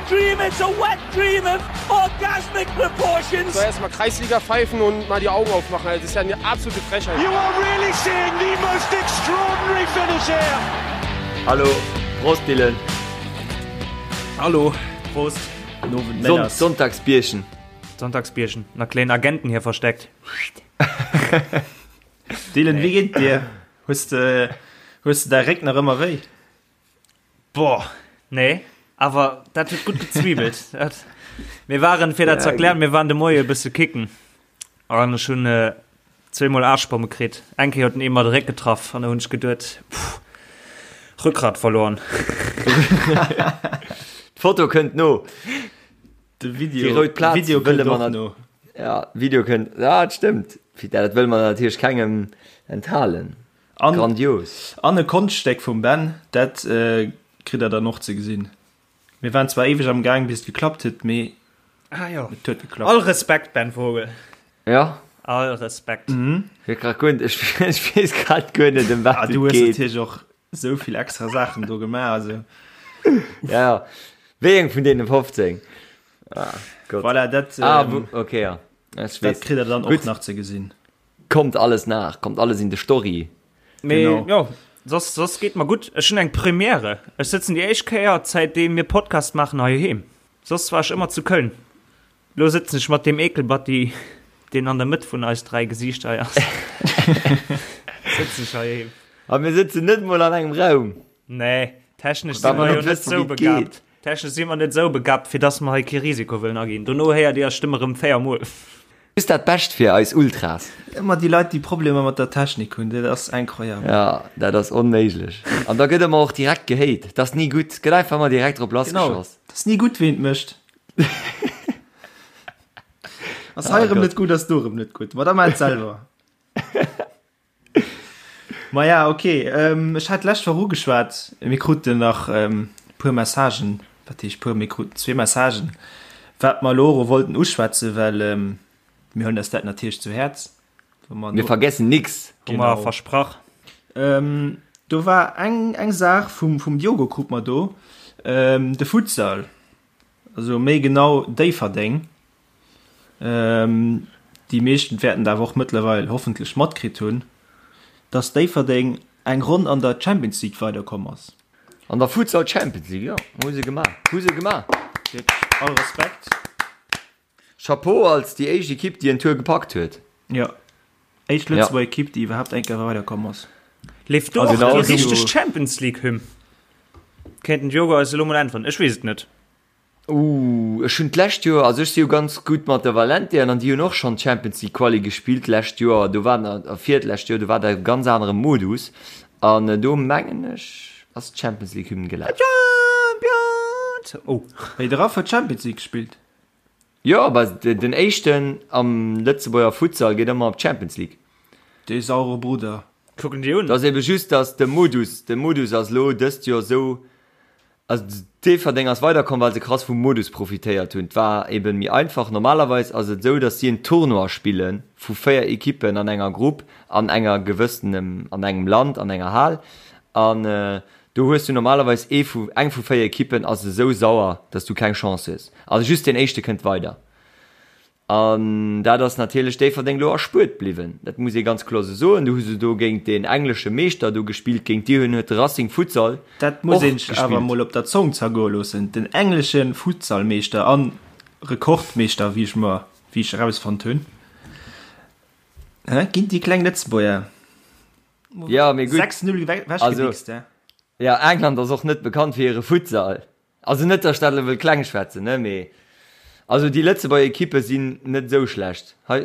dream, it's a wet dream of orgasmic proportions. So erstmal Kreisliga pfeifen und mal die Augen aufmachen. Also, das ist ja eine absolute Frechheit. You are really seeing the most extraordinary finish here. Hallo, Prost Dylan. Hallo, Prost. Son Sonntagsbierchen. Sonntagsbierchen. Na kleinen Agenten hier versteckt. Dylan, wie geet dir? Hues de, hues de däi Réck nach ëmmer wéi? Boah, nee, awer dat huet gutt gezwiebelt. Dat, mir waren, fir dat ze erklären, mir waren de Moie e bësse kicken. An ech hunn äh, zweemol Aarschbomme kritt. Eng Kéier huet en ee mer de Réck getraff an da hunn ech geduet, pff, Rückgrat verloren. D'Foto kënnt no. De Video, Déi rout Plaz Video wëlle kënnt mer och nat- no. Ja, Video kënnt. Ja, dat stëmmt. Dat wëlle mer natierlech kengem enthalen. An, Grandios. An e Konschtstéck vum Ben, dat kritt der dann och ze gesinn. Mir waren zwar éiweg am Gaang bis et geklappt huet, mee ah, jo. et huet geklappt. All Respekt, Ben Vogel. Ja. All Respekt. Mhm. Ech grad guer, ech, ech weess grad guer net, ëm wat ah, et du hues geet. natierlech och esou vill extra Saachen do gemaach, also. Ja, ja. Wéi eng vun deene 15? Ah, Gott. Voilà, dat, ah, ähm, okay, ja. Ech dat weess. kritt der dann och Gutt. nach ze gesinn. Kommt alles nach, kommt alles in de Story. Mee Genau. jo, soss, soss geet mer gutt. Ech hunn eng Première. Ech sëtzen déi éischt Kéier, zäitdeem mir Podcast maachen, heiheem. Soss war ech ëmmer zu Köln. Lo sëtzen ech mat deem Ekelbatti, deen an der Mëtt vun eis 3 Gesiichter hei ass, sëtzen ech heiheem. A mir sëtzen net mol an engem Raum. Nee, technesch si Well mer mer jo net net wëssen, sou wéi et begabt. geet. Technesch si mer net sou begabt, fir dass mer hei kee Risiko wëllen aginn. Dono héiert Dir eis Stëmm erëm 4 Mol. Just dat Bescht fir eis Ultras. Ëmmer déi Leit, déi Problemer mat der Technik hunn, dat ass incroyable. Ja, dat ass onméiglech. An da gëtt ëmmer och direkt gehate. Dat ass ni gutt. Gëtt einfach ëmmer direkt drop Genau, lassgeschoss. dat ass ni gutt, ween et mécht. Ass hei Ah, erëm Gott. net gutt, ass do erëm net gutt. Ma da maach et selwer. Maja, ok. Ech hat d'lescht Woch ugeschwat, mir kruten nach e puer Messagen, wat heescht puer, mir kruten zwee Messagen, wat mer elo och wollten uschwätzen, well mir huelen eis dat natierlech zu Häerz. Mir vergessen nix. Hu mer versprach. Do war eng eng Saach vum vum Diogo krut mer do, de Futsal, also méi genau Déifferdeng. Déi meeschten wäerten et awer och mëttlerweil hoffentlech matkritt hunn, dass Déifferdeng eng Ronn an der Champions League weiderkomm ass. An der Futsal Champions League, jo, hu se gemaach, hu se gemaach. Wierklech all Respekt. Chapeau als déi éischt Ekipp, déi en Tour gepackt huet. Jo, éischt Lëtzebuerger Ekipp, déi iwwerhaapt eng Kéier weiderkomm ass. Leeft do och déi richteg Champions League Hymn? Kéint den Diogo eis elo mol äntweren, ech weess et net. Ooh, ech hunn d'lescht Joer, also ech si jo ganz gutt mat der Valentian an déi hunn och schonn d'Champions League Quali gespillt d'lescht Joer, do war a virdlescht Joer, do war dat e ganz anere Modus an do mengen ech ass d'Champions League Hymn gelaf. Champions! Oh. Wéi de Raff huet Champions League gespillt. Jo, bah den éischten am Lëtzebuerger Futsal geet ëmmer op d'Champions League. Dee saure Brudder. Kucken déi un. Et ass ebe just, datt de Modus, de Modus ass elo dëst Joer esou, Also Déifferdeng ass weiderkomm, well se krass vum Modus profitéiert hunn. Et war eben méi einfach. Normalerweis ass et esou, datt si en Tournoi spille vu 4 Ekippen an enger Grupp an enger gewëssenem, an engem Land, an enger Hal. An do hues du normalerweis ee vu, eng vu 4 Ekippen ass esou sauer, datt s du keng Chance hues. Also just deen éischte kënnt weider. An dat ass natierlech Déifferdeng elo erspuert bliwwen, dat muss ee ganz kloer esou soen. Do hu se do géint deen englesche Meeschter do gespillt, géint déi hunn huet de Racing Futsal Dat muss och een sech awer gespillt. mol op der Zong zergoe loossen, den englesche Futsalmeeschter a Rekordmeeschter, wéi ech mer, wéi ech erausfonnt hunn, hä, ginn déi kleng Lëtzebuerger Ja, mee gutt, 6, 0 also, wechgewichst, hä. ja, England ass och net bekannt fir hire Futsal. Also net, datt ech dat elo wëll kleng schwätzen, ne, mee also déi Lëtzebuerger Ekippe sinn net esou schlecht hei.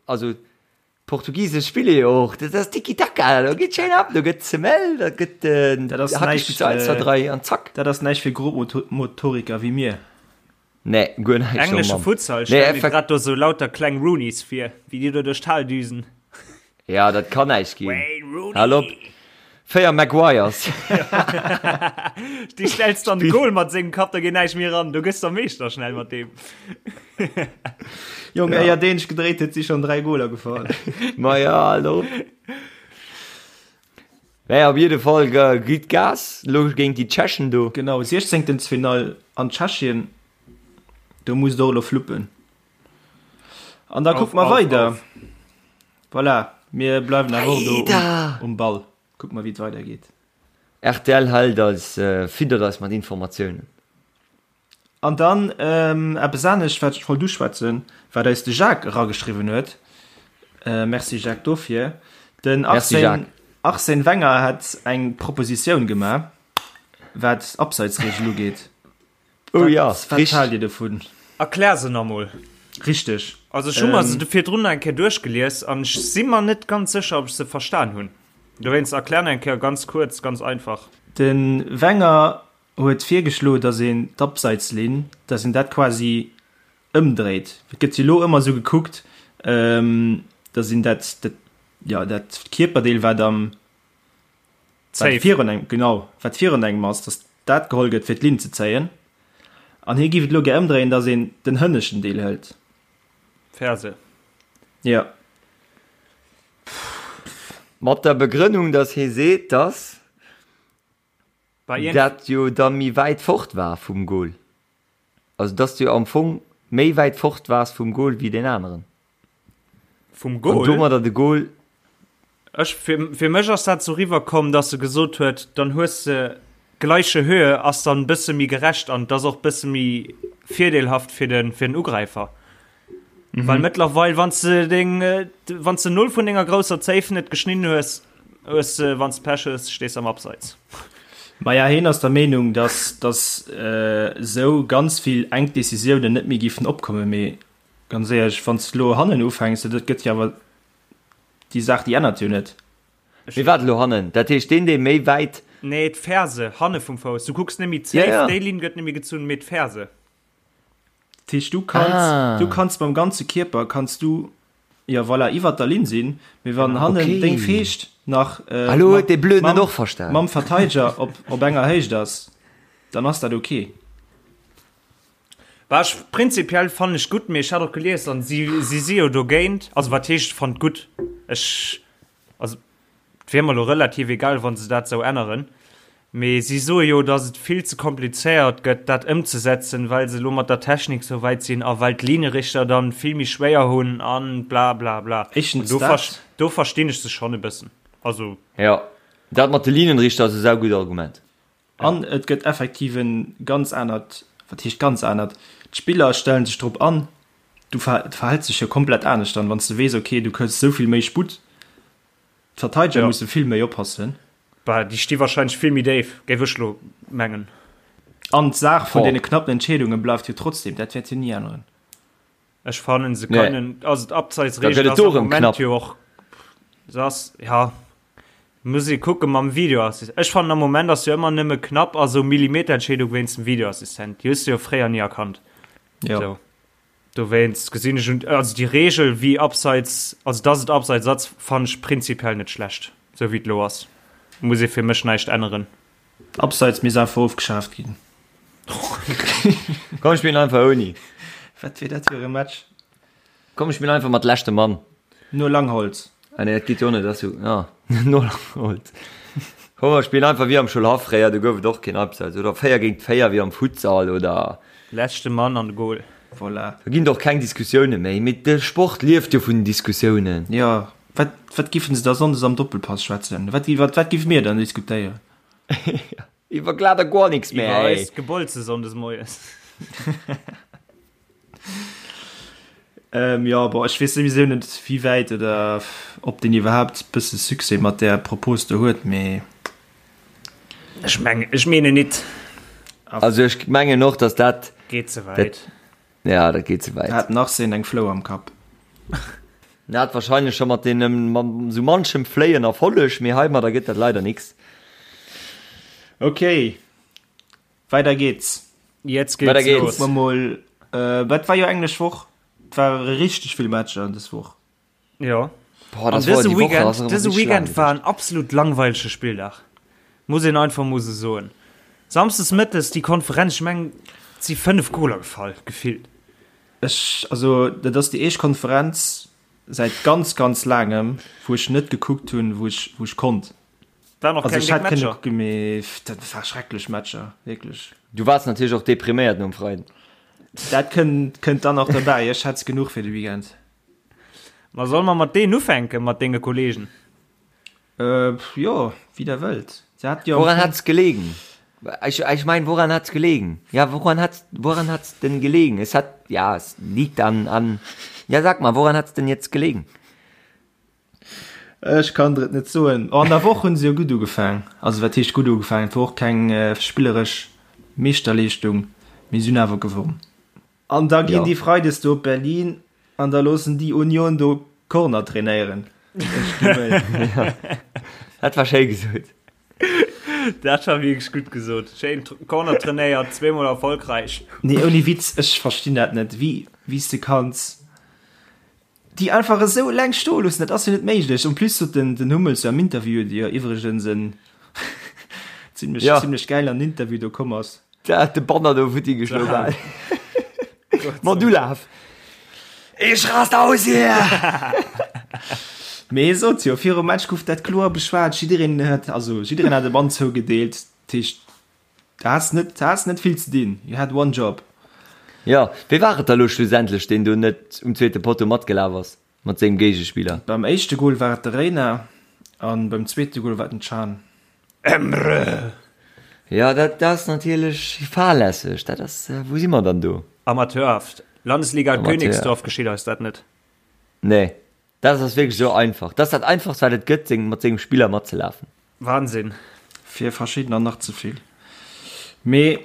Also d'Portugise spille jo och, dat ass Tiki-Taka, do geet schéin ab, do gëtt Semelle, da gëtt Dat ass Hackespill näischt, zu 1, 2, 3 an zack. Dat ass näischt fir Grobmotoriker wéi mir. Nee, guer näischt, oh Englesche Mann. Futsal, Nee, stell mir effekt. grad do sou lauter kleng Rooneys vir, wéi déi do duerch d'Hal düsen. Ja, dat kann näischt ginn. Wayne Rooney! Hal op. 4 Maguires. Déi stells du an de Goal mat sengem Kapp, da geet näischt méi eran. Du gëss der Meeschter schnell mat deem. Jong, éier deen sech gedréit huet, si schonn 3 Goler gefall. Ma ja, hal op. Naja, op jidde Fall gitt Gas lo géint déi Tschechen do. Genau, Siechzéngtelsfinall an Tschechien. Do muss et och elo fluppen. An da kucke mer weider. Voilà, mir bleiwen awer och do um Ball. Kucke mer, wéi et weidergeet. Rtl hält eis, fiddert eis mat Informatiounen. An dann eppes anescht, wat ech wollt uschwätzen, wat eis de Jacques erageschriwwen huet. Merci Jacques dofir. Den Arsène, Arsène Wenger hat eng Propositioun gemaach, wat d'Abseitsregel ugeet. Oh ja, wat haalt Dir dovun? Erklär se nach mol. Richteg. Also ech hu mer se virdrun eng Kéier duerchgelies an ech si mer net ganz sécher, ob ech se verstan hunn. Dowéinst erklär nach eng Kéier ganz kuerz, ganz einfach. De Wenger huet virgeschloen, datt een d'Abseitslinn, datt een dat quasi ëmdréit. Et gëtt jo elo ëmmer esou gekuckt, datt een dat, dat, jo, dat Kierperdeel, wat am, wat virun engem, genau, wat virun engem ass, datt dat geholl gëtt, fir d'Linn ze zéien. An hie géif et elo gär ëmdréien, datt een den hënneschten Deel hëlt. Ferse. Jo. Mat der Begrënnung, datt hie seet, datt Dat jo da méi wäit fort war vum Goal. Also dass du jo am Fong méi wäit fort waars vum Goal wéi deen aneren. Vum Goal? An domadder de Goal. Ech, fir, fir mech ass dat sou riwwer komm, dass e gesot huet, dann hues de gleiche Höhe, ass dann bësse méi gerecht an et ass och bësse méi virdeelhaft fir den, fir den Ugräifer. Mhm. Well mëttlerweil, wann du deng, wann du null vun denger grousser Zéif net geschnidden hues, hues du, wann du Pech hues, stees am Abseits. Maja, hien ass der Meenung, dass, dass äh, sou ganz vill enk Decisiounen net méi giffen opkommen, mee ganz éierlech, wann du lo hannen ufänks, dat gëtt jo awer déi Saach, déi ännert jo net. Mee wat elo hannen? Dat heescht deen, dee méi wäit. Nee, d'Ferse, hanne vum Fouss. Du kucks net méi d'Zéif, ja, ja. déi Linn gëtt net méi gezunn, mee d'Ferse. Dat heescht, du kanns, ah. du kanns mam ganze Kierper kanns du ja voilà, iwwer der Linn sinn, mee wann hannen okay. deng Feescht nach äh, Hallo, huet de Blöden mam, och verstan. Mam Verteidiger op, op enger Héicht ass, dann ass dat okay. War ech prinzipiell fannen ech gutt, mee ech hat och gelies an si si si jo dogéint, also wat heescht fannt gutt? Ech also Et wier mer elo relativ egal, wa se dat esou änneren. Mee si soe jo, datt et vill ze komplizéiert gëtt, dat ëmzesetzen, well se elo mat der Technik sou wäit sinn a well d'Linierichter dann vill méi schwéier hunn a bla bla bla. Éischtens dat. Do verstinn ech se schonn e bëssen. Also. Jo, dat mat de Linienrichter ass e saugutt Argument. An et gëtt effektiv e ganz anert, wat heescht ganz anert, d'Spiller stellen sech drop an, du verhäls dech jo komplett anescht dann, wann s de weess, okay, du kriss esou vill méi Sputt. D'Verteideger ja. musse vill méi oppassen. Bah, déi sti wahrscheinlech vill méi déif, géif ech lo mengen. An d'Saach vun deene knappen Entscheedunge bleift jo trotzdem, dat wäert jo ni änneren. Ech fannen se kënnen, nee. also d'Abseitsregel ass am Moment jo och, se ass, ja, muss ee kucke mam Videoassistent. Ech fannen am Moment ass jo ëmmer nëmme knapp a sou Millimeterentscheedung wéinst dem Videoassistent. Déi hues du jo fréier ni erkannt. Ja. So. Dowéinst gesinn ech un, also déi Regel wéi Abseits, also dass et Abseits ass, fannen ech prinzipiell net schlecht, sou wéi et elo ass. Muss ee fir mech näischt änneren. Abseits misst einfach ofgeschaaft ginn. Komm spillen einfach ouni. Wat wier dat fir e Match? Komm spillen einfach mat leschte Mann. No Langholz. Ah nee, dat geet jo net, dat ass jo, ja, no Langholz. Komm mer spillen einfach wéi am Schoulhaff fréier, do gouf et och keen Abseits, oder 4 géint 4 wéi am Futsal, oder. Leschte Mann an de Goal. Voilà. Do ginn et och keng Diskussioune méi, mee de Sport lieft jo vun den Diskussiounen. Jo, wat, wat giffen se da Sonndes am Doppelpass schwätzen? Wat, iwwer wat giffe mir dann diskutéieren? Iwwer glat a guer nix méi, Iwwer ey. eist Gebolze Sonndes moies. Ähm, jo, bon, ech weess souwisou net, wéi wäit oder ob deen iwwerhaapt bësse Succès mat där Propos do huet, mee. Ech mengen, ech meenen nit. Also ech mengen och, dass dat. Geet ze wäit. Ja, dat geet ze wäit. Hat den Arsène eng Flou am Kapp? En hat wahrscheinlech scho mat deenen, mat sou manchem Fléien Erfolleg, mee heimadder gëtt dat leider nix. Okay, Weider geht's. Jetzt geht's Weider los. geht's. Kucke mer mol, äh, wat war jo englesch Woch? Et ware richteg vill Matcher dës Woch. Ja. Boah, An das war dëse die Woche Weekend, ass erëm dëse richtig laang Weekend war gewiescht. en absolut langweilege Spilldag. Muss een einfach mol sou soen. Samsdes mëttes déi Konferenz, ech mengen, et si 5 Goler gefall, gefillt. Ech, also dat ass déi éischt Konferenz säit ganz, ganz laangem, wou ech net gekuckt hunn, wou ech, wou ech konnt. Waren och Also keng ech déck hätt kënne Matcher. kucken, mee dat war schrecklech Matcher, wierklech. Du waars natierlech och depriméiert nom Freiden. Dat kënnt, kënnt dann nach derbäi. Ech hätt genuch fir de Weekend. Ma solle mer mat deenen ufänken, mat denge Kollegen? Äh, jo, wéi der wëllt. Se hat jo Woran hat's gelegen? Ech, ech mein, woran hat's gelegen? Ja, woran hat's, woran hat's denn gelegen? Es hat, ja, es liegt an, an, ja, sag mal, woran hat's denn jetzt gelegen? Ech kann der et net soen. Oh, an der Woch hunn se jo gutt ugefaang. Also wat heescht gutt ugefaang? Et wor och keng spilleresch Meeschterleeschtung, mee se hunn awer gewonn. An da ginn déi Freides do op Berlin an da loossen déi Union do Corner trainéieren. Ech gi wëll. Dat war schéi gesot. Dat war wierklech gutt gesot. Schéin Corner trainéiert, zweemol erfolgräich. Nee, ouni Witz, ech verstinn dat net, wéi wéi s de kanns déi einfach esou eleng stoe loossen, dat ass jo net méiglech. En plus sot den den Hummels jo am Interview, dee jo iwwregens en zimlech Ja. zimlech gäil an den Interview do komm ass. Der hat de Banner do futti geschloen bal. Mat Ulaf. Ich rast aus hier! Mee hie sot jo, virum Match gouf dat kloer beschwat, jiddereen huet, also jiddereen hat e Bann zougedeelt, dat heescht, du has net, du has net vill ze dinn, you had one job. Jo, wee war et da lo schlussendlech, deen do net um zweete Potto matgelaf ass mat sengem Géigespiller? Beim éischte Gol war et de Reina an beim zweete Gol war et den Can. Emre! Jo, dat ass natierlech fahrlässeg. Dat ass, wou si mer dann do? Amateurhaft. Landesliga Amateur. Königsdorf geschitt eis dat net. Nee, dat ass wierklech esou einfach. Dat ass dat einfachst, wat et gëtt, seng, mat sengem Spiller matzelafen. Wahnsinn. Fir verschiddener nach ze vill. Mee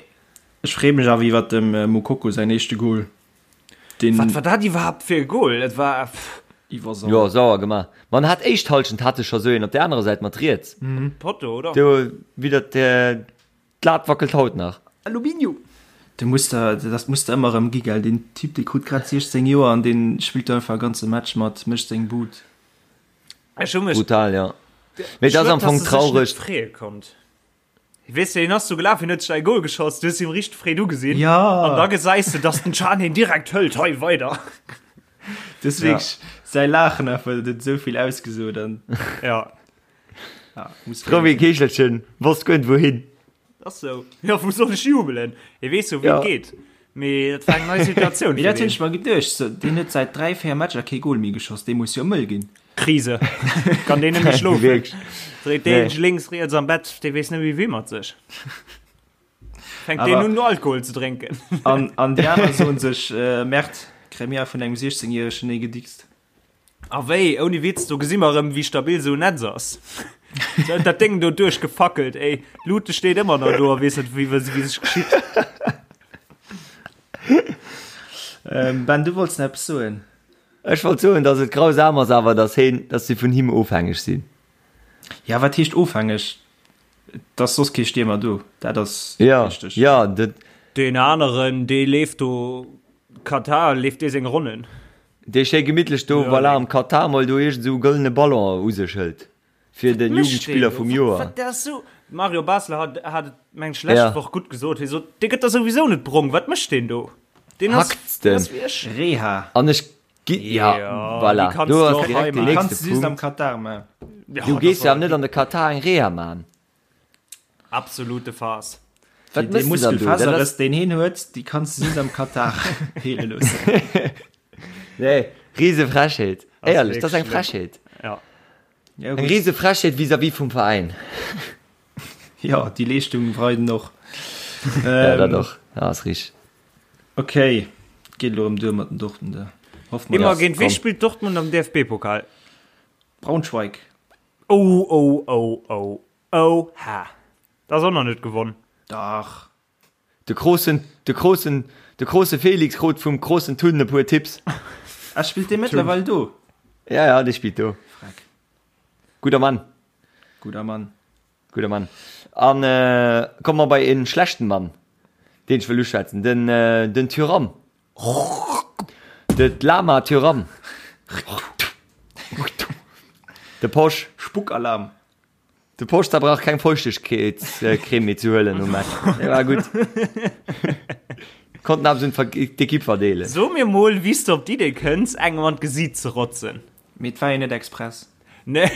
ech freeë mech awer iwwert dem Moukoko säin éischte Gol. Deen. Wat war dat iwwerhaapt fir e Goal? Et war pff. Iwwer Jo, sauer gemaach. Ma en hat éischt Halschent hat e scho sou een op der anerer Säit mat riets. Potto, oder? Do widder d'Lat wackelt haut nach. Aluminium! De muss der, dat muss der ëmmer erëm gi, gell? Deen Typ, dee krut grad 16 Joer an dee spillt do einfach e ganze Match mat, mécht seng Bud. Ech hu mech. Brutal, jo. Mee et ass am Fong traureg. Freeë konnt. Weess de, hien ass do gelaf, hien huet sech säi Goal geschoss, du hues him richteg Freed ugesinn. Ja. An da gesäis de, dass den Can hien direkt hëlt, hei weider. Das ja. wirklich, säi Laachen einfach, dat huet esou vill ausgesot an. Ja. Ja, muss Frou wéi e Keechelchen, wosst guer net wouhin. Ass sou. Ja, wou soll ech jubelen? Hie weess jo, wéi Ja. et geet. Mee dat war eng nei Situatioun Mee fir dat hunn deen. ech mer geduecht, so, deen huet säit 3, 4 Matcher kee Goal méi geschoss, dee muss jo mëll ginn. Krise. Kann deen net méi schlofen. Wierklech. Dréit deen Nee. sech lénks, riets am Bett, dee weess net méi wéi mat sech. Fänkt deen Awer- un Alkohol ze drénken. An, an déi aner soen sech, äh, Merde, kréie mir vun engem 16 järegen ee gedickst. A wéi, ouni Witz, do gesi mer erëm, wéi stabil esou en Netz ass. Se huet dat Déng do duerchgefackelt, ey. D'Lute steet ëmmer nach do a weess net, wéi, wéi sech geschitt. Ähm, Ben, du wollts nach eppes soen? Ech wollt soen, dass et grausam ass awer, dass heen, dass si vun him ofhängeg sinn. Ja, wat heescht ofhängeg? Et ass soss kee Stiermer do, dat ass Ja, richteg. ja, dat. Deen aneren, dee leeft do, Katar, leeft dee seng Ronnen. Dee schéi gemittlech do, voilà, am Katar mol do iergend esou e gëllene Ballon u sech hëlt fir de Jugendspiller vum Joer. Wat dat ass sou, Mario Basler hat hat et meng ech lescht Woch gutt gesot, hie sot, dee gëtt der souwisou net brong, wat mécht deen do? Deen ass, deen ass wéi ech. Reha. An ech gi, ja, voilà, do ass direkt deen Déi nächste kanns de just am Punkt. Katar man. Du gees jo awer net an de Katar eng Reha man. Absolute Farce. Wat Dee mëss de dann do? Dat ass- Muskelfaserrëss, deen hien huet, déi kanns de just am Katar heele loossen. Nee, rise Frechheet. Ass Éierlech, dat ass eng wierklech schlëmm. Frechheet. Ja. Ja, Eng gutt. rise Frechheet vis-à-vis vum Veräin. Ja, déi Leeschtung weiden och. Ja, dat Ähm, och. Ja, ass richteg. okay, geet elo erëm duer mat den Dortmunder. Hoffe mer, Immer dass géint wee komm. spillt Dortmund am DFB-Pokal? Braunschweig. Oh, oh, oh, oh. Oha! Dat ass och nach net gewonn. Dach. De grossen, de grossen, de grosse Felix krut vum grossen Tun e puer Tipps. Ah, spillt dee mëttlerweil do? Ja, ja, dee spillt do. Freck. Gudder Mann. Gudder Mann. Gudder Mann. An komme mer bei en schlechten Mann, deen ech wëll uschwätzen, den, den Thuram. De Lama Thuram. De Posch. Spuckalarm. De Poster brauch keng Feuchtegkeetscreme méi ze huelen nom Match. Dee war gutt. Konnten awer un d'Ekipp verdeelen. So mir mol wéi s de op d'Idee kënns engem an d'Gesiit ze rotzen. Mee et war jo net express. Nee,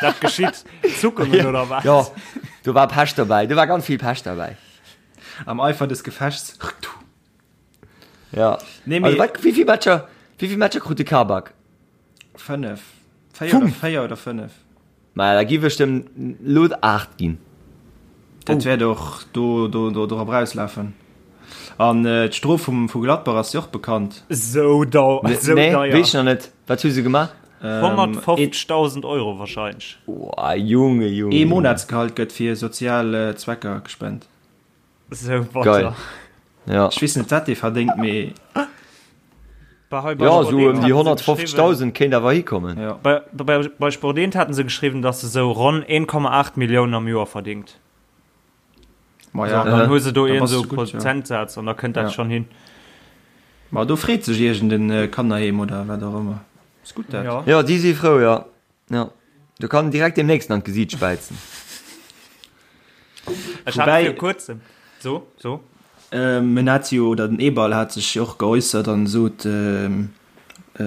dat geschitt. Zuckungen oder wat? Jo, do war Pech dobäi. Do war ganz vill Pech dobäi. Am Eifer des Gefechts. Ja. Nee, mee, also, wat, wéi vill Matcher, wéi vill Matcher krut de Kabak? 5. 4 oder 4 oder 5. Ma da giff ech dem lo 8 ginn. Dat oh. wäert och do, do, do dorop rauslafen. An äh, d'Strof vum, vu Gladbach ass jo och bekannt. So dau, nee, so nee, deier. Weess nach net. Wat hu se gemaach? Ähm, 150.000 Euro wahrscheinlich. Oh, Junge, Junge. Ee Monatsgehalt gëtt fir sozial äh, Zwecker gespent. So batter. Geil. Ja. Ech weess net wat dee verdéngt, mee. Bei, bei Ja, Sport sou 1 ëm déi haten se geschriwwen, 150.000 kéint awer hikommen. Ja. bei, bei, bei Sport 1 haten se geschriwwen, dass se sou ronn 1,8 Milliounen am Joer verdingt. Ma So, ja. an dann hu se do Da een bass sou du gutt, ja. Prozentsaz an da kënnt dat Ja. schon hin. Ma do freet sech iergend en Kannerheem oder wat och ëmmer. Ass gutt dat. Ja. Ja, déi si frou, ja. Ja. Do kann en direkt deem nächsten an d'Gesiit späizen. Ech hat Woubäi- fir kuerzem. So, so. Ähm, en hat jo, oder den Eberl hat sech jo och geäussert an sot, ähm, äh,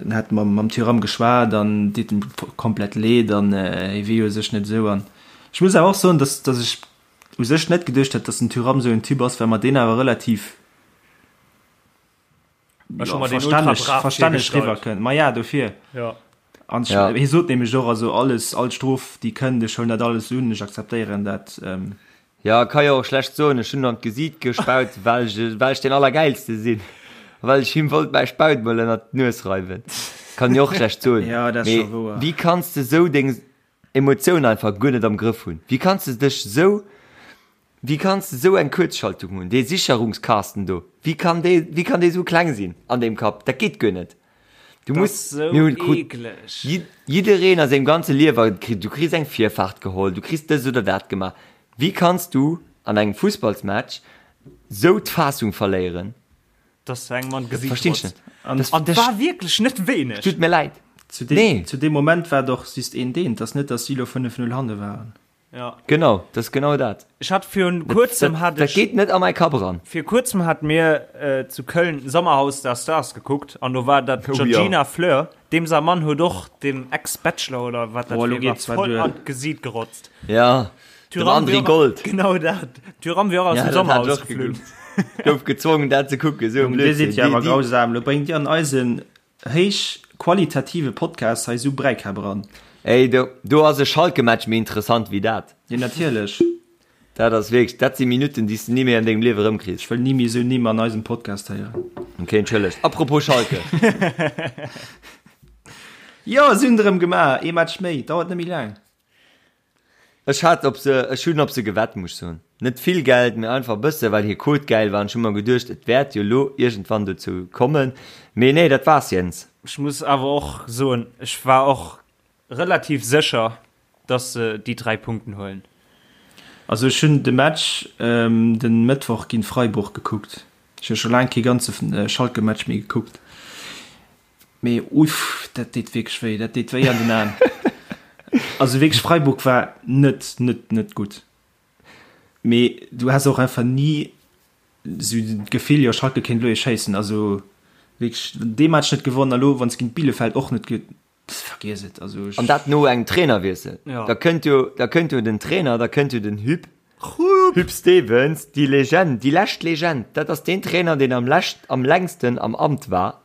en hätt mam, mam Thuram geschwat an deet em komplett leed an äh, hie wier jo u sech net esou. An ech muss awer och soen, dass, dass ech u sech net geduecht hätt, dass den Thuram esou en Typ ass, well mer deen awer relativ Ech hu mer deen ultra verstänneg, brav verstänneg virgestallt. riwwer kënnt. Ma ja, dofir. Ja. An ech, Ja. hie sot nämlech och, also alles, all Strof, déi kënnt, ech huelen dat alles un, ech akzeptéieren dat. Ähm, Ja, ka jo och schlecht soen, ech hunn an d'Gesiit gespaut, well ech, well ech deen Allergäilste sinn a well ech him wollt mäi Spaut mol ënnert d'Nues reiwen. Kann jo och schlecht soen. Ja, dat ass Mee scho wouer. wéi kanns de sou deng Emotioun einfach guer net am Grëff hunn? Wéi kanns de dech sou Wéi kanns de sou eng Kuerzschaltung hunn? Dee Sicherungskasten do, wéi kann dee, wéi kann dee sou kleng sinn an deem Kapp? Dat geet guer net. Du Dat muss, ass sou mir hunn krut eekleg. jiddereen a sengem ganze Liewer kritt, du kriss eng Virfaart geholl, du kriss dëst oder dat gemaach. Wéi kanns du an engem Fussballsmatch sou d'Fassung verléieren? Dass du engem an Dat d'Gesiit verstinn ech rotzt. net. An Das, An das war wierklech net wéineg. tut mir leid. zu deem, Nee. zu deem Moment war et och just een Deen. Et ass net, dass si lo 5-0 hanne waren. Ja. Genau, dat ass genau dat. Ech hat virun kuerzem hat Dat ech geet net a mäi Kapp eran. Vir kuerzem hat mir äh, zu Köln Sommerhaus der Stars gekuckt an do war dat Oh, Georgina ja. Fleur, deem säi Mann huet och dem Ex-Bachelor oder wat dat Boah, lo fir war, geet zwar voll duer. an d'Gesiit gerotzt. Ja, dem Thuram André wier och- Gold. Genau dat. Thuram wier och aus Ja, dem dat hat Sommerhaus ech och geflunn. gekuckt. Gouf gezwongen dat ze kucken, esou e Junge, dir sidd Blödsinn. jo awer Déi, déi, grausam. Lo bréngt dir an eisen héich qualitative Podcast hei sou Bräikäpp eran. Ey, do, do ass e Schalke-Match méi interessant wéi dat. Jo, natierlech. Dat ass wierklech, dat si Minutten, déi s de ni méi an dengem Liewe erëmkriss. Ech wëll ni méi esou Nimm an eisem Podcast héieren. Ok, entschëllegt. Apropos Schalke. Jo, si hunn et erëm gemaach. Ee Match méi, dauert net méi laang. Ech hat op se, ech hunn op se gewett, muss ech soen. Net vill Geld, mee einfach e bësse, well hir Quote gäil war. An ech hu mer geduecht, et wäert jo lo iergendwann dozou kommen. Mee nee, dat war's, Jens. Ech muss awer och soen, ech war och relativ sécher, dass se déi 3 Punkten huelen. Also ech hunn de Match den Mëttwoch géint Freiburg gekuckt. Ech hu scho laang kee ganze Schalke-Match méi gekuckt. Mee uff, dat deet wierklech wéi, dat deet wéi an den Aen. Also wierklech Freiburg war net, net, net gutt. Mee du has och einfach ni sou d'Gefill, jo Schalke kéint elo ee schéissen. Also wierklech dee Match net gewonnen a lo wann s géint Bielefeld och net ge, vergiess et. Also ech. An dat no engem Trainerwiessel. Ja. Da kënnt jo, da kënnt jo den Trainer, da kënnt jo den Huub, Huub Stevens, déi Legend, déi lescht Legend. Dat ass deen Trainer, deen am lescht, am längsten am Amt war.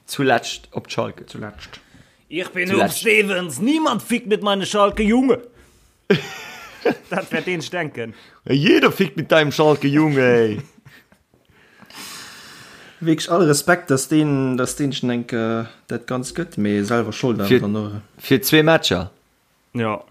Zuletscht op d'Schalke. Zuletscht. Ich bin Huub Stevens, niemand fickt mit meine Schalke, Junge! Dat wäert deen denken. Jeder fickt mit deinem Schalke, Junge, ey! Wierklech all Respekt, dass deen, dass deen schon enk dat Ganzt gëtt, mee selwer Schold awer Fir, dann och. fir zwee Matcher. Ja.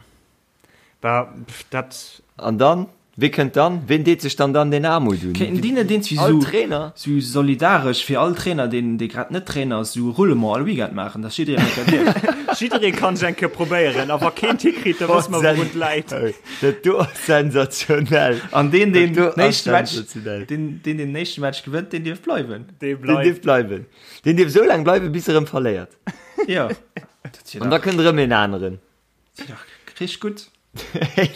Bah, pff, dat. An dann? Wee kënnt dann? Ween deet sech dann dann deen Aarmut un? Kéinten déi net iergendwéi All sou, Trainer? sou solidaresch fir all Trainer, deen, dee grad net Trainer ass, sou Roulement all Weekend maachen, dass jiddereen eng Kéier dierf? Jidderee kann sech eng Kéier probéieren, a wa keen et hikritt, da wësse mer, wourun et läit. Dat do ass sensationell. An deen, deen Dat do den ass éischte Match, sensationell. deen, deen den éischte Match gewënnt, deen dierf bleiwen. Dee Deen bleift. dierf bleiwen. Deen dierf esou laang bleiwen, bis e rëm verléiert. Jo. Dat wier An da dach, kënnt erëm een aneren. dat wier dach richteg gutt.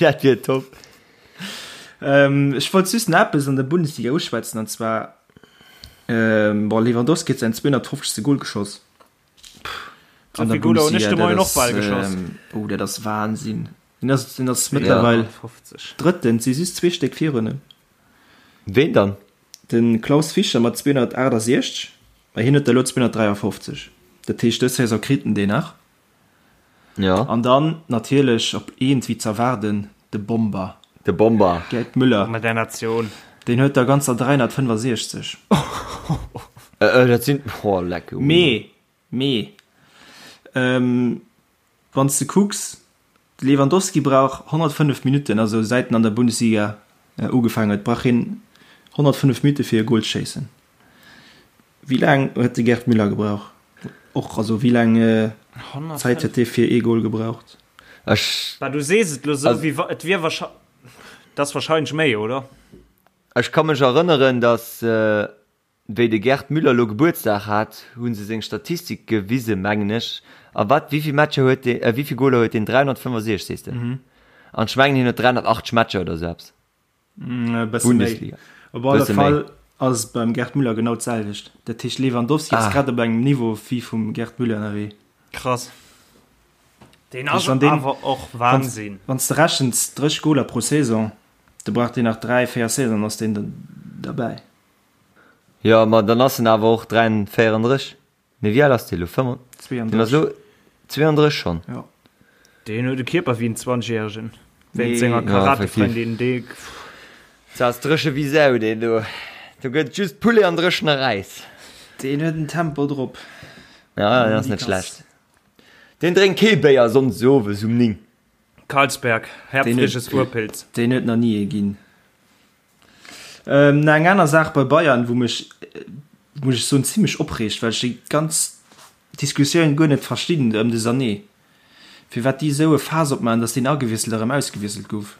Dat wier top. Ähm, ech wollt just nach eppes an der Bundesliga uschwätzen, an zwar, ähm, bon, Lewandowski huet säin 250. Goal geschoss. Sou vill Goaler hunn ech de Moien och bal geschoss. Ähm, oh, dat ass Wahnsinn. Den ass, den ass mëttlerweil 250. Drëtten, et si just zwee Stéck virun him. Ween dann? De Klaus Fischer mat 268, mä hien huet der elo 253. Dat heescht, dës Saison kritt en deen nach. Ja. An dann natierlech op eent wéi z'erwaarden, de Bomber. De Bomber. Gerd Müller. Mat der Natioun. Deen huet der ganzer 365. Dat sinn, oh leck. Mee, mee, wann s de kucks, De Lewandowski brauch 105 Minutten, also säit en an der Bundesliga ugefaangen huet, brauch hien 105 Minutte fir e Gol ze schéissen. Wéi laang huet de Gerd Müller gebraucht? Och, also wéi laang Zäit huet dee fir ee Gol gebraucht? Ech. Bah, du sees et lo sou, wéi wa et wier wahrscheinlech, et ass wahrscheinlech méi, oder? Ech ka mech erënneren, datt Wéi de Gerd Müller lo Gebuertsdag hat, hu se seng Statistik gewise mengen ech. A wat, wéivill Matcher huet deen, äh wéivill Goler huet deen? 365 sees de? An ech mengen hien huet 380 Matcher oder sou eppes. E bësse méi. Bundesliga. Op alle Bësse méi. Fall ass et beim Gerd Müller genau d'selwecht. Dat heescht Lewandowski ass Ah. grad op engem Niveau wéi vum Gerd Müller ënnerwee. Krass. Deen ass Wann deen- awer och Wahnsinn. Wann s de rechens 30 Goler pro Saison, da brauch deen nach 3, 4 Saisonen, ass deen derbäi. Jo, ma dann ass en awer och 34. Nee, wéi al ass dee lo? 35? Deen ass lo 32 schonn. Jo. Deen huet e Kierper wéi en Zwanzegjäregen. Wéinst Nee. senger Ja, Karatefrëndin, dee. Dat ass dréche wéi Sau, deen do. Do gëtt just Poulet an dréchene Räis. Deen huet en Tempo drop. Ja, deen ass net schlecht. Deen drénkt kee Béier sonndes owes um 9. Carlsberg, Herbstliches Urpilz. Deen huet nach ni ee ginn. Ähm, eng aner Saach bei Bayern, wou mech, muss ech soen, zimmlech opreegt, well ech déi ganz Diskussioun guer net verstinn ëm de Sané. Firwat déi esou e Faass opmaachen, datt deen agewiesselt a rëm ausgewiesselt gouf.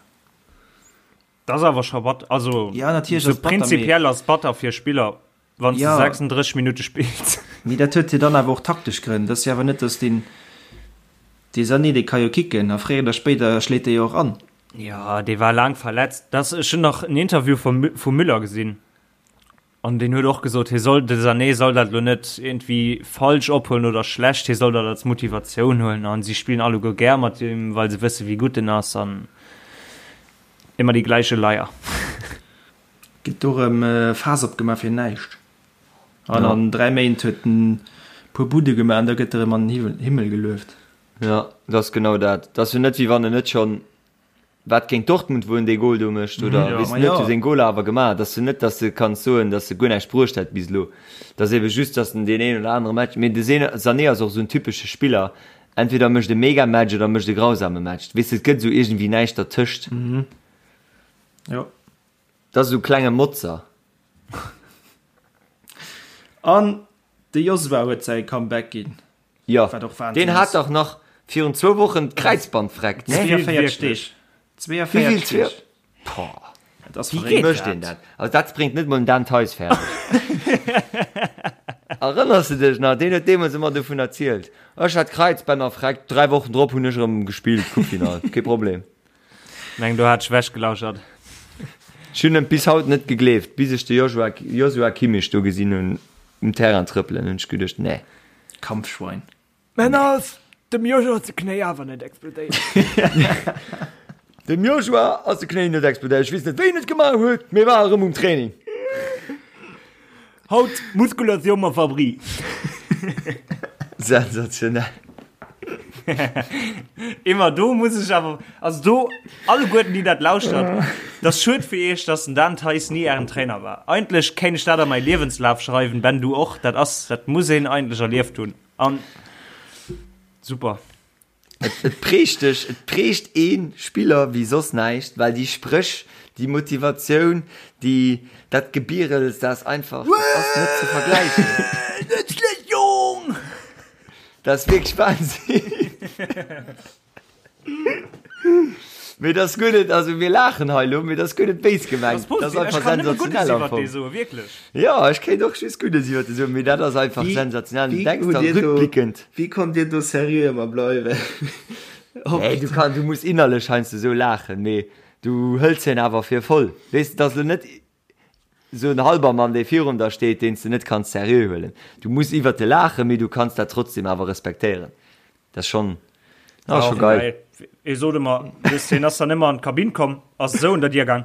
Dat ass awer scho batter. Also, Ja, natierlech sou ass batter, mee. prinzipiell ass batter fir Spiller, wann s de Ja. 36 Minutte spills. Mee dat huet jo dann awer och taktesch Grënn. Dat ass jo awer net, datt deen, dee Sané, dee ka jo kicken a fréier oder spéider schléit dee jo och an. Jo, dee war laang verletzt. Das, ech hunn nach en Interview vum, vum Müller gesinn. An deen huet och gesot, hie soll, de Sané soll dat lo net iergendwéi falsch ophuelen oder schlecht, hie soll dat als Motivatioun huelen. An si spillen alleguer gär mat him, well se wësse wéi gutt en ass. An immer die gleiche Leier. Gëtt do rëm Faass opgemaach fir näischt. An an 3 Méint huet en puer Budde gemaach an da gëtt e rëm an den Himmel gelueft. Jo, dat ass genau dat. Dat ass jo net wéi wann en net schonn, wat géint Dortmund, wou en dee Gol do mécht oder weess net, huet seng Goler awer gemaach. Dat ass jo net, datt s de kanns soen, datt e guer näischt bruecht hätt bis elo. Dat ass ebe just, datt en deen een oder anere Match, mee de Sané ass och esou en typesche Spiller, entweder mécht e Mega-Match oder mécht e grausame Match. Weess de, et gëtt esou iergendwéi näischt dertëscht. Jo. Dat ass esou e klenge Motzer. An de Josua huet säi Comeback ginn. Jo, Wat och Wahnsinn deen hat ass. dach nach virun zwou Wochen d'Kräizband vreckt, ne? 42 Deeg. Wéi vill? 42 Deeg. Boah, Dat ass wéi verréckt. mécht een dat? Also dat bréngt net mol den Dan Theis fäerdeg. Erënners de dech nach? Deen huet deemools ëmmer dovun erzielt. Ech hat d'Kräizbänner vreckt, 3 Wochen drop hunn ech erëm gespillt, Coupe-Finall, kee Problem. Meng do hat ech wechgelauschert. Ech hunn et bis haut net gegleeft, bis ech de Joshua, Joshua Kimmich do gesinn hunn um Terrain trëppelen, hunn ech geduecht, nee. Kampfschwein. Mä ass dem Joshua ze Knéi awer net explodéiert. Dem Joshua ass de Knéi net explodéiert. Ech weess net wéi en et gemaach huet, mee war erëm um Training. Haut Muskulatioun mam Fabri. Sensationell. Immer do muss ech awer, also do alleguerten déi dat lauschtert, dat ass schued fir iech, dass den Dan Theis ni ären Trainer war. Eigentlech kéint ech dat a mäi Liewenslaf schreiwen, Ben du och, dat ass, dat muss een eigentlech erlieft hunn an super. Et prägt dech, et prägt ee Spiller wéi soss näischt, well déi Spréch, déi Motivatioun, déi, dat Gebierels, dat ass einfach, dat ass net ze vergläichen. Net schlecht Jong! Dat ass wierklech Wahnsinn. Mee dat ass guer net, also mir laachen hei elo, mee dat ass guer net béis gemengt. Dat Dat ass ass positiv. Ech einfach kann nëmme Guddes sensationell am iwwert Fong. dee soen, wierklech. Jo, ech kéint och just Guddes iwwert dee soen, mee dat ass einfach Wéi, sensationell. Du wéi denks hutt da dir do, rückblickend. wéi konnt dir do seriö ëmmer bleiwen? Op. Nee, du kann, du muss innerlech heiansdo esou laachen, mee du hëls hien awer fir voll. Weess de, dat ass elo net esou en Halbermann, dee virun der steet, deen s de net kanns seriö huelen. Du muss iwwert e laachen, mee du kanns dat trotzdem awer respektéieren. Dat ass schonn, dat ass scho geil. Hie sot ëmmer, weess, hien ass dann ëmmer an d'Kabinn komm, ass esou un der Dier gaang.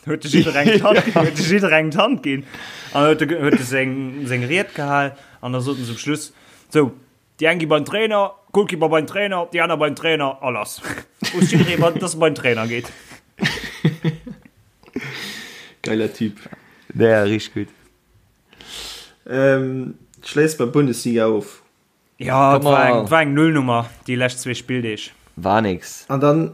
Huet de jidderengem d'Hand, huet de jidderengem d'Hand ginn an huet de, huet de seng, seng Ried gehal an da sot en zum Schluss, sou, déi eng gi beim Trainer, Goalkeeper beim Trainer, déi aner beim Trainer a lass. Wosst jidderee, wat, dass e beim Trainer geet. Geiler Typ. Ja, richtig gut. Ähm, schléiss mer d'Bundesliga of. Ja, et war eng, war eng Nullnummer déi lescht zwee Spilldeeg. War nix. An dann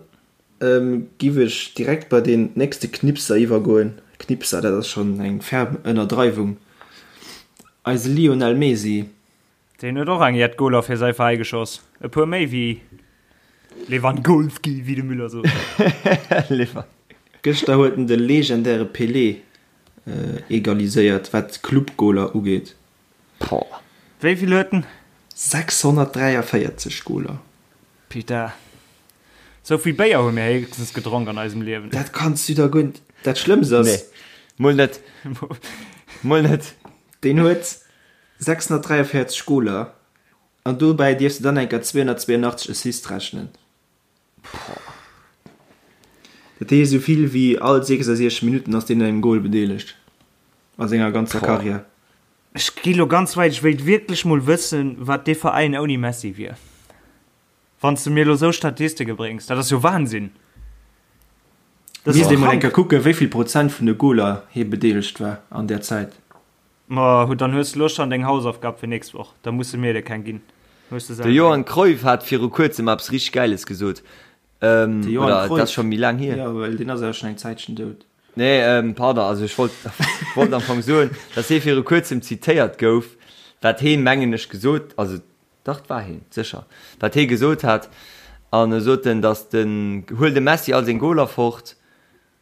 ähm, giff ech direkt bei den nächste Knipser iwwergoen. Knipser, dat ass schonn eng ferm Ënnerdreiwung. Eise Lionel Messi. Deen huet och eng jett Goler fir säi Veräi geschoss. E puer méi wéi Lewandowski, wéi de Müller sot. Lewan. Gëschter huet en de legendäre Pelé egaliséiert, wat d'Club-Goler ugeet. Boah. Wéi vill huet en? 643 Goler. Putain. Sou vill Béier hu mir héchstens gedronk an eisem Liewen. Dat kanns du der guer net. Dat Schlëmmst ass. Nee, mol net. Mol net. Deen huet 643 Goler an dobäi dierfs de dann eng Kéier 282 Assists rechnen. Dat heescht, esou vill wéi all 66 Minutten ass deen un engem Gol bedeelegt a senger ganzer Karriär. Ech gi lo ganz wäit, ech wéilt wierklech mol wëssen, wat dee Veräin ouni Messi wier. Wann s de mir lo sou Statistike bréngs, dat ass jo Wahnsinn. Dat ass jo krank. Misst ee mol eng Kéier kucken, wéi vill Prozent vun de Goler hie bedeelegt war an där Zäit. Ma dann hues de lo schonn deng Hausaufgab fir nächst Woch, da musse mir der keng ginn. Hues de De selwer Johan eng. Cruyff hat viru kuerzem eppes richteg Gäiles gesot. De Johan Oder et ass Cruyff? scho méi laang hier. Jo, well deen ass awer schonn eng Zäitchen dout. Nee, pardon, also ech wollt, wollt am Fong soen, dass hie viru kuerzem zitéiert gouf, wat hee mengen ech gesot, also dach et war hien, sécher, wat hee gesot hat, an e sot en, dass den, huel dem Messi all seng Goler fort,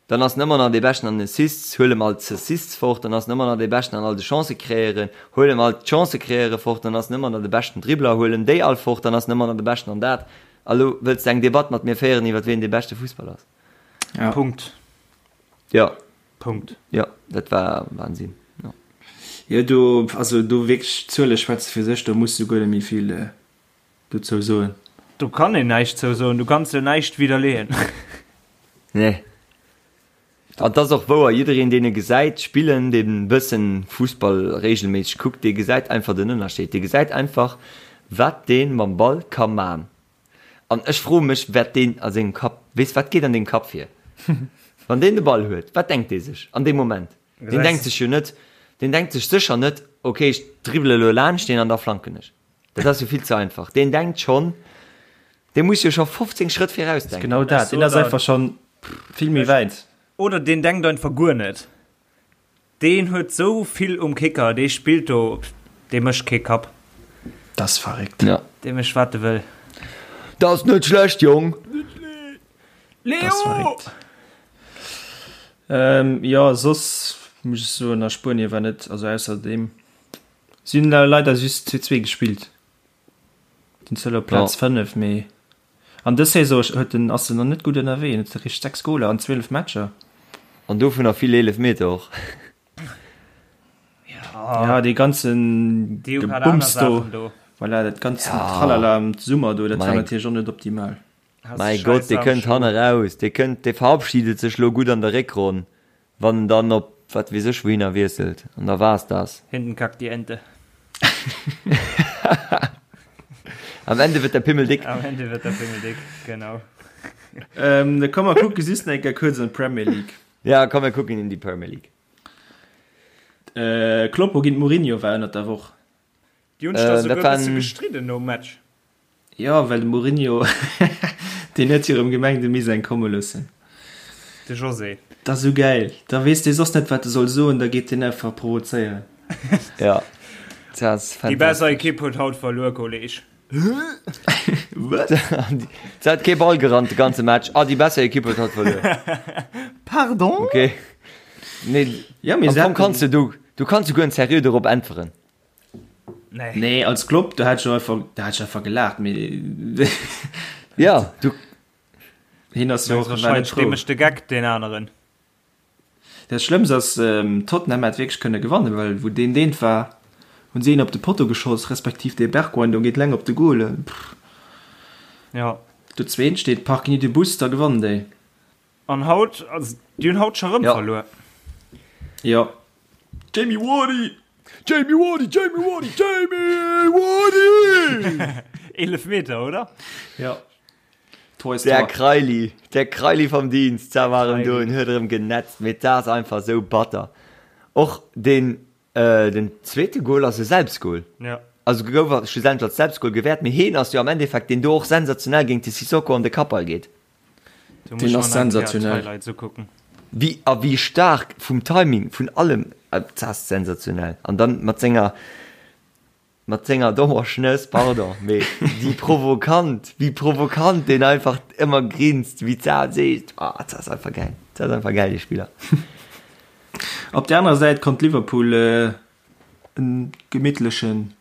dann ass en ëmmer nach dee Beschten an den Assists, huel em all d'Assists fort, dann ass en ëmmer nach dee Beschten an all de Chancë kreéieren, huel em all d'Chancë kreéiere fort, dann ass en ëmmer nach de beschten Dribbler, huel em déi all fort, dann ass en ëmmer nach de Beschten an dat. A lo wëlls de eng Debatt mat mir féieren iwwer wien dee beschte Fussballer ass? Ja. Punkt. Ja. Punkt. Ja, dat war Wahnsinn. Ja. Jo, do, also do wierklech, d'Zuele schwätze fir sech, do muss du guer net méi vill dozou soen. Do kann een näischt zou soen, du kanns jo näischt widderleeën. Nee. An 't ass och wouer, jiddereen deen e gesäit spillen, deen e bëssen Fussball regelméisseg kuckt, dee gesäit einfach den Ënnerscheed. Dee gesäit einfach, wat dee mam Ball ka man. An ech froe mech, wat deen a sengem Kapp, weess, wat geet an deem Kapp vir, wann deen de Ball huet? Wat denkt dee sech an deem Moment? Deen denkt sech jo net, deen denkt sech sécher net, ok, ech dribbele elo laanscht deen an da flanken ech. Dat ass jo vill ze einfach. Deen denkt schonn, dee muss jo scho 15 Schrëtt viraus denken. Genau dat, deen ass einfach schonn vill méi wäit. Oder deen denkt einfach guer net. Deen huet sou vill um Kicker, dee spillt do, dee mécht kee Kapp. Dat ass verréckt. Ja. Dee mécht wat e wëll. Dat ass net schlecht, Jong! Dat ass verréckt. Jo, soss muss ech soen, a Spuenie war net, also ausser deem, si hunn leider just 2, 2 gespillt, sinn zwar elo op Plaz 5, mee An dës Saison huet en, ass en nach net gutt ënnerwee, en huet eréischt 6 Goler an 12 Matcher. An dovunner vill Eelefmeter och. Ja, dee ganzen Gebumms do, voilà, dat ganzen Tralala am Summer do, dat war natierlech och net optimal. Mäi Gott, dee kënnt hanne raus, dee kënnt, dee verabschiedet sech lo gutt an der Réckronn, Wann en dann op wat weess ech wouhinner wiesselt, an da war's das. Hinten kackt die Ente. Am Ende wird der Pimmel dick. Am Ende wird der Pimmel dick, genau. Ähm, da komm mer kucke just nach eng Kéier kuerz an d'Premier League. Ja, komm mir kucken in die Premier League. Äh, Kloppo géint Mourinho war ënnert der Woch. Déi hunn sech da Äh, dat souguer e war bësse en. gestridden nom Match. Jo, well de Mourinho, deen huet jo erëm gemengt, e misst eng komme loossen. De José. Dat ass esou gäil. Da weess dee soss net, wat e soll soen, da geet deen einfach provozéieren. Ja, dat ass Déi besser fantastesch. Ekipp huet haut verluer, Kolleg. Wat? Se hat kee Ball gerannt de ganze Match. Ah, déi besser Ekipp huet haut verluer. Pardon? Okay. Nee, Ja, mee am se Fong kanns haten. du, du, du kanns souguer en seriö dorop äntweren. Nee. Nee, als Klopp, do hätt ech einfach, da hätt ech einfach gelaacht, mee Ja, du. hien ass jo och war net Wahrscheinlech frou. dee mécht de Geck, deen aneren. Dat Schlëmmst ass, Tottenham hätt wierklech kënne gewannen, well wou deen deent war, hunn si een op de Potto geschoss, respektiv dee Bergwijn do geet leng op de Goal. Pff. Ja. Do zweent steet, parken ni de Bus, da gewannen déi. An haut, also déi hunn haut scho rëm verluer. Jo. Jamie Wardy! Jamie Wardy, Jamie Wardy, Jamie Wardy! 11 Meter, oder? Jo. Der Kreili, der Kreili vom Dienst, da war erëm do en huet erëm genetzt, mee dat ass einfach sou batter. Och den, äh, den zweete Goal ass e Selbstgoal. Ja. Also gouf schlussendlech als Selbstgoal gewäert, mee heen ass jo am Endeffekt deen do och sensationell géint de Sissoko an de Kappball geet. Deen ass sensationell. Wéi a wéi staark vum Timing, vun allem, dat ass sensationell. An dann mat senger, mat senger dommer Schnëss, pardon, mee déi provokant, wéi provokant deen einfach ëmmer grinst, wéi d'Sau seet, ah, dat ass einfach gäil, dat ass einfach gäil, dee Spiller. Op där anerer Säit konnt Liverpool en gemittlechen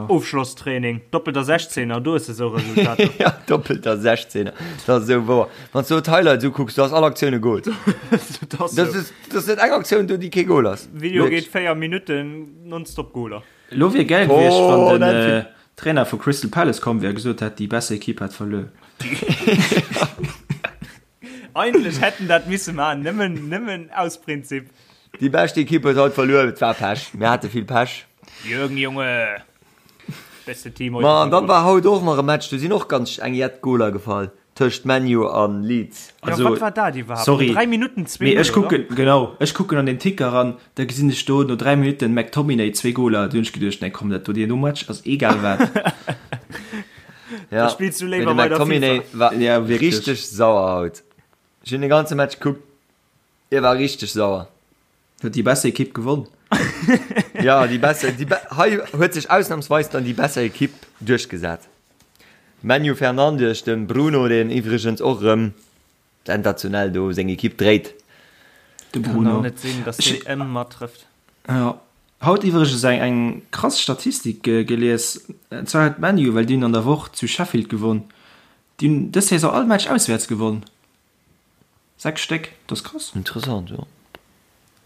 Ofschlosstraining, doppelter 16er, do hues de sou Resultater. Ja, doppelter 16er, dat ass esou wouer. Wann s du d'Highlights ukucks, do ass all Aktioun e Goal. Dat ass sou. Dat ass net eng Aktioun do, déi kee Goal ass. Video geet 4 Minutten, nonstop Goaler. Elo wier gäil gewiescht, wann den Trainer vu Crystal Palace komm wier a gesot hätt, déi besser Equipe hätt verluer. Eigentlech hätt en dat misse maachen, nëmmen, nëmmen aus Prinzip. Déi bescht Ekipp huet haut verluer, et war Pech, mir hate vill Pech. Jürgen Junge, beste Team heute. Ma an dann war haut och nach e Match, do sinn och ganz eng jett Goler gefall tëscht ManU an Leeds. Also, ja, wat war dat iwwerhaapt? Sorry, no 3 Minutten 2 mee ech kucken, genau, ech kucken an den Ticker an da gesinn ech do no 3 Minutten McTominay 2 Goler, du hunn ech geduecht, nee komm, dat do deen do Match ass egal wat. Ja, Da spillst du mee léiwer de weider McTominay FIFA. war Ja, wierklech. richteg sauer haut. Ech hunn de ganze Match gekuckt, hie war richteg sauer. Huet déi besser Ekipp gewonn. Ja, déi besser, déi be hei huet sech ausnamsweis dann déi besser Ekipp duerchgesat. Manu Fernandes, dem Bruno, deen iwwregens och erëm sensationell do seng Ekipp dréit. De Kann Bruno. och net sinn, dass deen ëmmer trëfft. Ja. Haut iwwregens eng eng krass Statistik gelies, an zwar huet ManU, well déi hunn an der Woch zu Sheffield gewonn, déi hunn dës Saison all Match auswäerts gewonn, 6 Stéck, dat ass krass. Interessant, jo.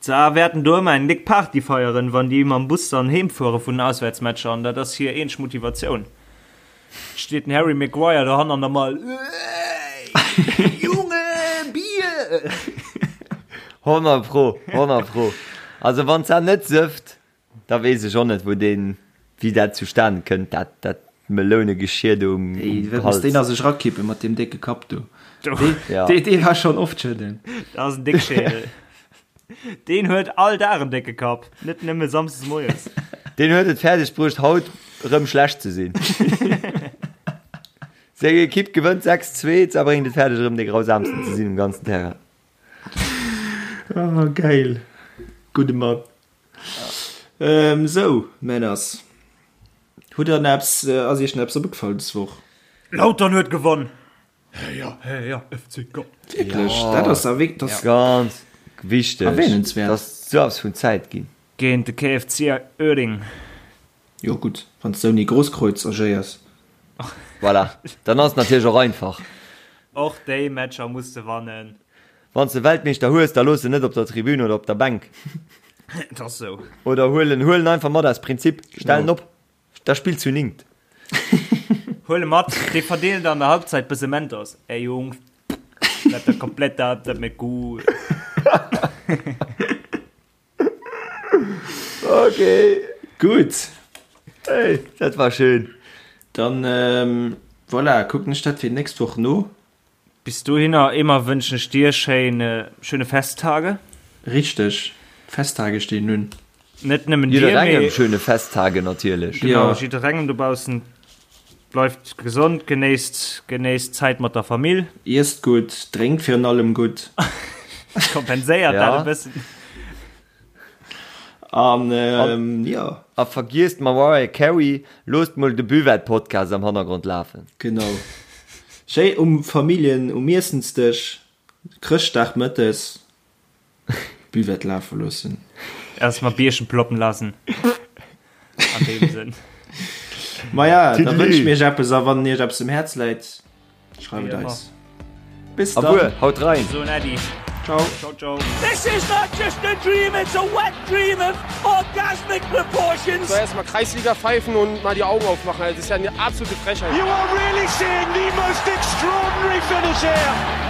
D'Saar wäerten do ëmmer eng déck Party feieren, wann déi mam Bus dann heem fuere vun den Auswäertsmatcher an dat ass hir eenzeg Motivatioun. Steet den Harry Maguire dohann an der Mall, Ey, Junge, Bier! 100 pro, 100 pro. Also wann d'Sar net sëfft, da weess ech och net wou deen, wéi dat zustanen kënnt, dat dat Melounegeschier do um Ey, wat muss Hals. deen a sech rakippen mat deem décke Kapp do? Dee, Ja. dee, dee war schonn oft schëdden. Dat ass en Déckschädel. Deen huet all Dag en décke Kapp, net nëmme samsdes moies. Deen huet et fäerdeg bruecht haut rëm schlecht ze sinn. Seng Ekipp gewënnt 6, 2, a bréngt et fäerdeg erëm dee grausamsten ze sinn um ganzen Terrain. Ah, geil. Gudde Mann. Ähm, sou, Männers. Hutt der nach eppes, ass iech nach eppes opgefall des Woch? Lautern huet gewonn! Heya, heya, FCK! Wierklech? Dat ass da wierk, dat ass Ganz wichteg. Erwähnenswert. Dat ass sou eppes vun Zäit ginn. Géint de KFC Uerding. Jo gutt, wann s de ouni Grosskreuz agéiers. Voilà, dann ass et natierlech och einfach. Och déi Matcher muss de wannen. Wann s de Weltmeeschter hues, da looss en net op der Tribün oder op der Bänk. Et ass sou. Oder huel en, huel en einfach mat aus Prinzip. Stell en op. Da spillt zu ningt. Huel e mat, dee verdeelt an der Halbzeit bësse Mentos. Ey Jungs, bleibt der komplett da, dat mir gut. Okay. Gutt. Hey, dat war schön. Dann, ähm, voilà, kucken ech dat fir d'nächst Woch no. Bis dohinner Emer wënschen ech dir schéin schöne Festtage. Richteg, d'Festtage stinn un. Net nëmmen dir, Jidderengem mee schöne Festtage natierlech. genau, Jo. jidderengem dobaussen. Bleift gesond, genéisst genéisst d'Zäit mat der Famill. Iesst gutt, drénkt virun allem gutt. Kompenséiert dat e Ja. bëssen. An jo. A vergiesst Mariah Carey, loosst mol de Buvette-Podcast am Hannergrond lafen. Genau. Schéi um Familljen um Iessensdësch, Chrëschtdag mëttes, Buvette lafe loossen. Erstmal Bierchen ploppen lassen. An deem Sënn. Maja, da Tüdelü. wënsche mir iech eppes a wann iech eppes um Häerz läit, schreift Wéi et ëmmer. eis. Bis Abuer, dann. haut rein! So en Äddi. Ciao. Ciao, ciao. This is not just a dream, it's a wet dream of orgasmic proportions. So erstmal Kreisliga pfeifen und mal die Augen aufmachen. Das ist ja eine absolute Frechheit. You are really seeing the most extraordinary finish. Solskjaer.